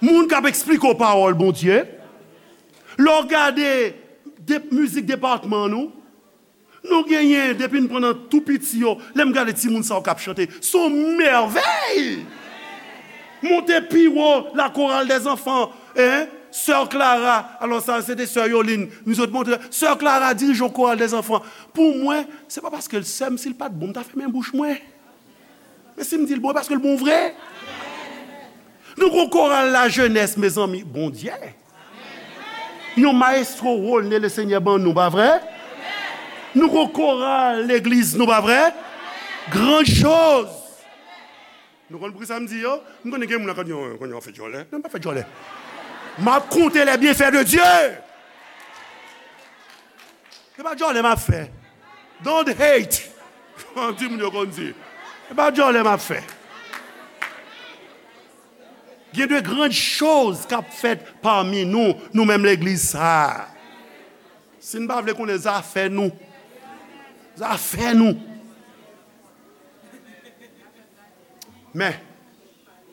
Moun k ap eksplike w pawòl Bondye. Lè w gade de, mizik depatman nou, nou genyen, depi n pran nan tou piti yo, lè m gade timoun sa yo k ap chante, se yon mèvèy! Monte pi wo, la chorale des enfants, hein? Sè Clara, alò sa, se te sè Yoline, nou sot monte, sè Clara dirije yon chorale des enfants. Pou mwen, se pa paske l sè m, si l pa t bon, m ta fèmen bouch mwen. Men si m di l bon, e paske l bon vre. Nou gon koral lajenès, mezanmi, Bondye. Yon maestro Rolne Lesenyè ban nou, pa vre? Nou gon koral legliz nou, pa vre? Grann choz. Nou konn poukisa m di yo? M konnen gen moun la k ap di, "Oh, konnen w ap fè djòlè." Non, m pa fè djòlè. M ap konte les bienfaits de Dieu. Se pa djòlè m ap fè. Don't hate. Di moun yo konn di. Se pa djòlè m ap fè. Gen de grann choz k ap fèt pami nou, nou menm legliz sa a. Si n pa vle konnen zafè nou, zafè nou. Men,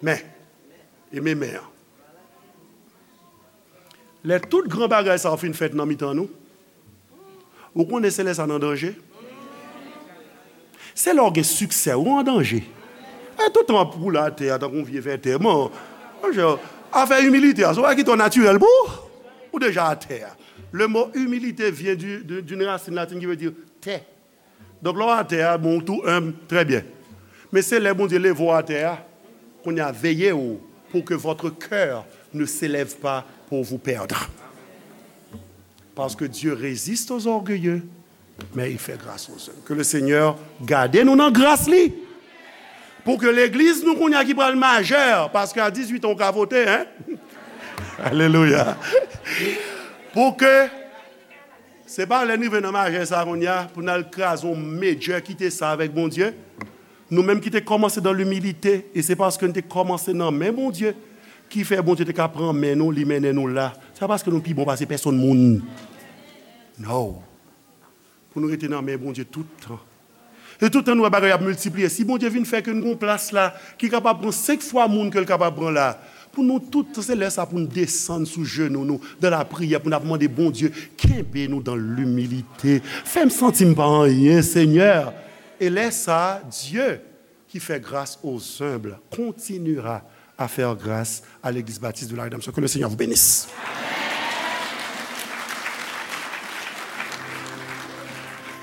men, e men, men an. Lè tout gran bagay sa yo fin fèt nan mitan nou, ou konnen se lè sa n an danje. Se lè w gen siksè, ou an danje. E tout tan w ap woule atè a tankou yon vye vètè. Bon, monchè, afè imilite a, se yon bagay ki twò natirèl pou ou. Ou deja atè a. Le mot humilité vient du, de, d'une racine latine qui veut dire terre. Donk, lè w atè a, bon, ou tou enb, trè byen. Men se lè Bondye leve w atè a, kounye a, veye w pour que votre cœur ne s'élève pas pour vous perdre. Parce que Dieu résiste aux orgueilleux, mais il fait grâce aux humbles. Que le Seigneur gade nou nan gras li. Pou ke legliz nou kounye a ki pral majè, paske a dizuit an ou ka vote, hein? Alelouya. Pou ke se pa lè n rive nan majè sa kounye a, pou n al kraze yon medjè, kite sa avèk Bondye. Nou menm ki te kòmanse dans l'humilité, e se paske n te kòmanse nan men Bondye, ki fè Bondye te ka pran men nou, li mennen nou la. Se pa paske nou pi bon pase pèsonn moun. No. Pou nou rete nan men Bondye tout tan. E tout tan nou wè bagay ap miltipliye. Si Bondye vin fè ke n gon plas la, ki kapab pran senk fwa moun ke l kapab pran la, pou nou tout, se lè sa pou n desann sou jenou nou, dans la prière, pou n ap mande Bondye, kenbe nou dans l'humilité. Fè m santi m pa anyen, Senyè. E lè sa, Dieu, qui fait grâce aux humbles, continuera à faire grâce à l'Église baptiste de la rédemption. Que le Seigneur vous bénisse.